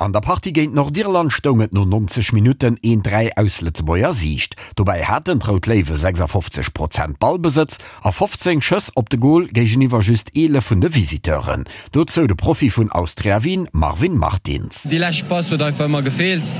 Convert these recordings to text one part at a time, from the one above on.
An der Partie géint Nordirland stoung et no 90 Minutten 1, 3 aus Lëtzebuerger Siicht. Dobäi haten d'Rout Léiwe 56 Prozent Ballbesëtz a 15 Schëss op de Gol géigeniwwer just 11 vun de Visiteuren. Dozou de Profi vun Austria Wien, Marvin Martins. Déi lescht Pass huet einfach ëmmer gefeelt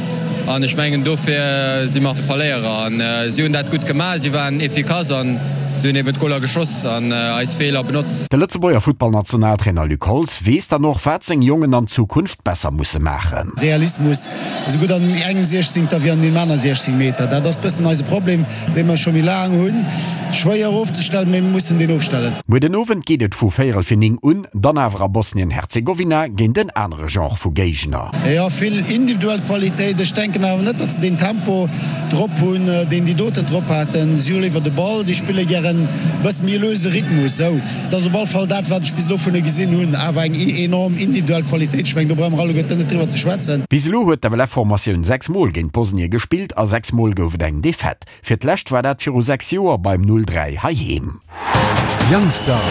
an ech mengen dofir si mer de Verléierer an si hunn dat gutt gemaach, si waren efficace an si hunn eben d'Goler geschoss an eis Feeler benotzt. De Lëtzebuerger Futtballnationaltrainer Luc Holtz weess dann och, wat seng Jongen an Zukunft besser musse maachen. Realismus, esou gutt an engem Siechzéngter wéi an deem aner 16 Meter. Dat ass bëssen eise Problem, dee mer scho méi laang hunn. Schwéier ofzestellen, mee mir mussen deen ofstellen. Muer den Owend geet et vu véierel fir 9 un dann awer a Bosnien-Herzegowina géint en anere Genre vu Géigner. Jo, vill individuell Qualitéit. Ech denken awer net, datt se deen Tempo drop hunn, deen déi doten drop haten. Si hu léiwer de Ball, déi spille gären e bësse méi e luese Rhythmus. Sou, dat ass op all Fall dat, wat ech bis elo vun hinne gesinn hunn. Awer eng enorm individuell Qualitéit, ech mengen, do brauche mer alleguerten net driwwer ze schwätzen. Bis elo huet d'FLF-Formatioun 6 Mol géint Bosnie gespillt a 6 Mol gouf et eng Defaite. Fir d'lescht war dat viru 6 Joer beim 0, 3 heiheem. Youngstar.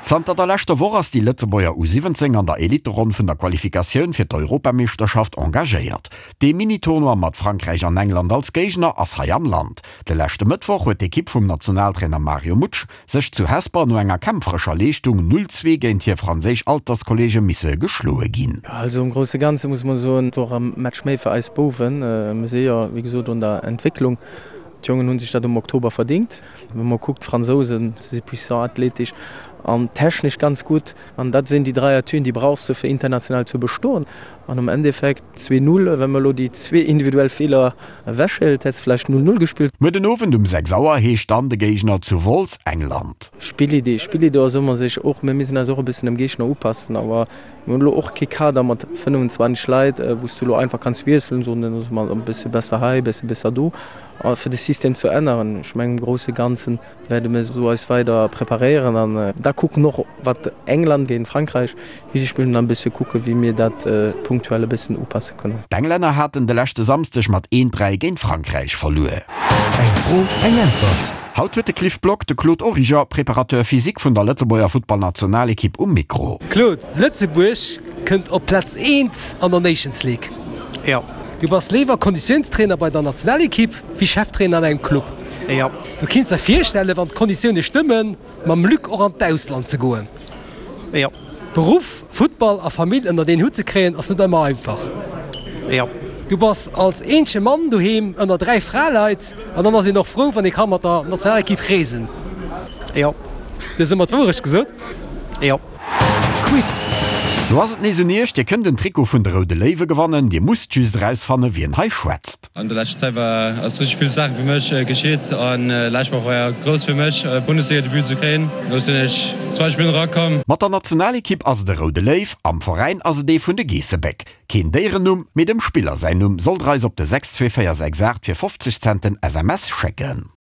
Zanter der leschter Woch ass déi Lëtzebuerger U17 an der Elitteronn vun der Qualifikatioun fir d'Europameeschterschaft engagéiert. Dee Mini-Tournoi mat Frankräich an England als Géigner ass hei am Land. De leschte Mëttwoch huet d'Ekipp vum Nationaltrainer Mario Mutsch sech zu Hesper no enger kämpferescher Leeschtung 0, 2 géint hir franséisch Alterskolleege misse geschloe ginn. Also am grousse Ganze muss mer soen, et wor e Match méi fir eis Bouwen. Mir si jo wéi gesot un der Entwécklung. D'Jongen hu sech dat am Oktober verdingt. Wa mer kuckt, d'Fransousen, se si puissant, athletesch an technesch ganz gutt. An dat sinn déi 3 Atouren, déi brauchs de fir international ze bestoen. An am Endeffekt 2, 0, wa mer elo déi zwee individuell Feeler ewechhuelen, hätt se vläicht 0, 0 gespillt. Muer den Owend um 6 Auer heescht dann de Géigner zu Wolz England. Spillidee, Spillidee ass ëmmer sech och, mir müssen eis och e bëssen dem Géigner upassen, awer mir hunn elo och kee Kader mat 25 Leit, wou s du elo einfach kanns wiesselen, sondern ass emol e bësse besser hei, e bësse besser do, a fir de System ze änneren. Ech mengen am grousse Ganzen wäerte mir esou eis weider preparéieren an da kucken och wat England géint Frankräich, wéi si spillen an e bësse kucke wéi mir dat punktuell e bëssen upasse kënnen. D'Englänner haten de leschte Samsdeg mat 1, 3 géint Frankräich verluer. Eng Fro, eng Äntwert. Haut huet de Cliff Block de Claude Origer, Préparateur physique vun der Lëtzebuerger Futtballnationalekipp um Mikro. Claude, Lëtzebuerg kënnt op Plaz eent an der Nations League. Jo. Du bass léiwer Konditiounstrainer bei der Nationalekipp wéi Cheftrainer an engem Club. Jo. Du kinns der virstellen, wann d'Konditioune stëmmen, mam Luc och an d'Ausland ze goen. Jo. Beruff, Futtball a Famill ënnert een Hutt ze kréien, ass net ëmmer einfach. Jo. Du bass als eenzege Mann doheem ënner 3 Fraleit an dann ass een och frou, wann ee ka mat der Nationalekipp reesen. Jo. Du hues ëmmer d'Wourecht gesot. Jo. Quiz. Lo ass et nees un iech, Dir kënnt en Trikot vun de Roude Léiwe gewannen. Dir musst just erausfanne wien hei schwätzt. An der leschter Zäit war ass richteg vill Saache fir mech geschitt an lescht Woch war jo grouss fir mech Bundesliga Debut ze kréien. Do sinn ech 20 Minutten erakomm. Mat der Nationalekipp ass et e roude Léiw, am Veräin ass et ee vun de Geessebéck. Keen Déierennumm, mee dem Spiller säin Numm sollt der eis op de 62468 fir 50 Cent en SMS schécken.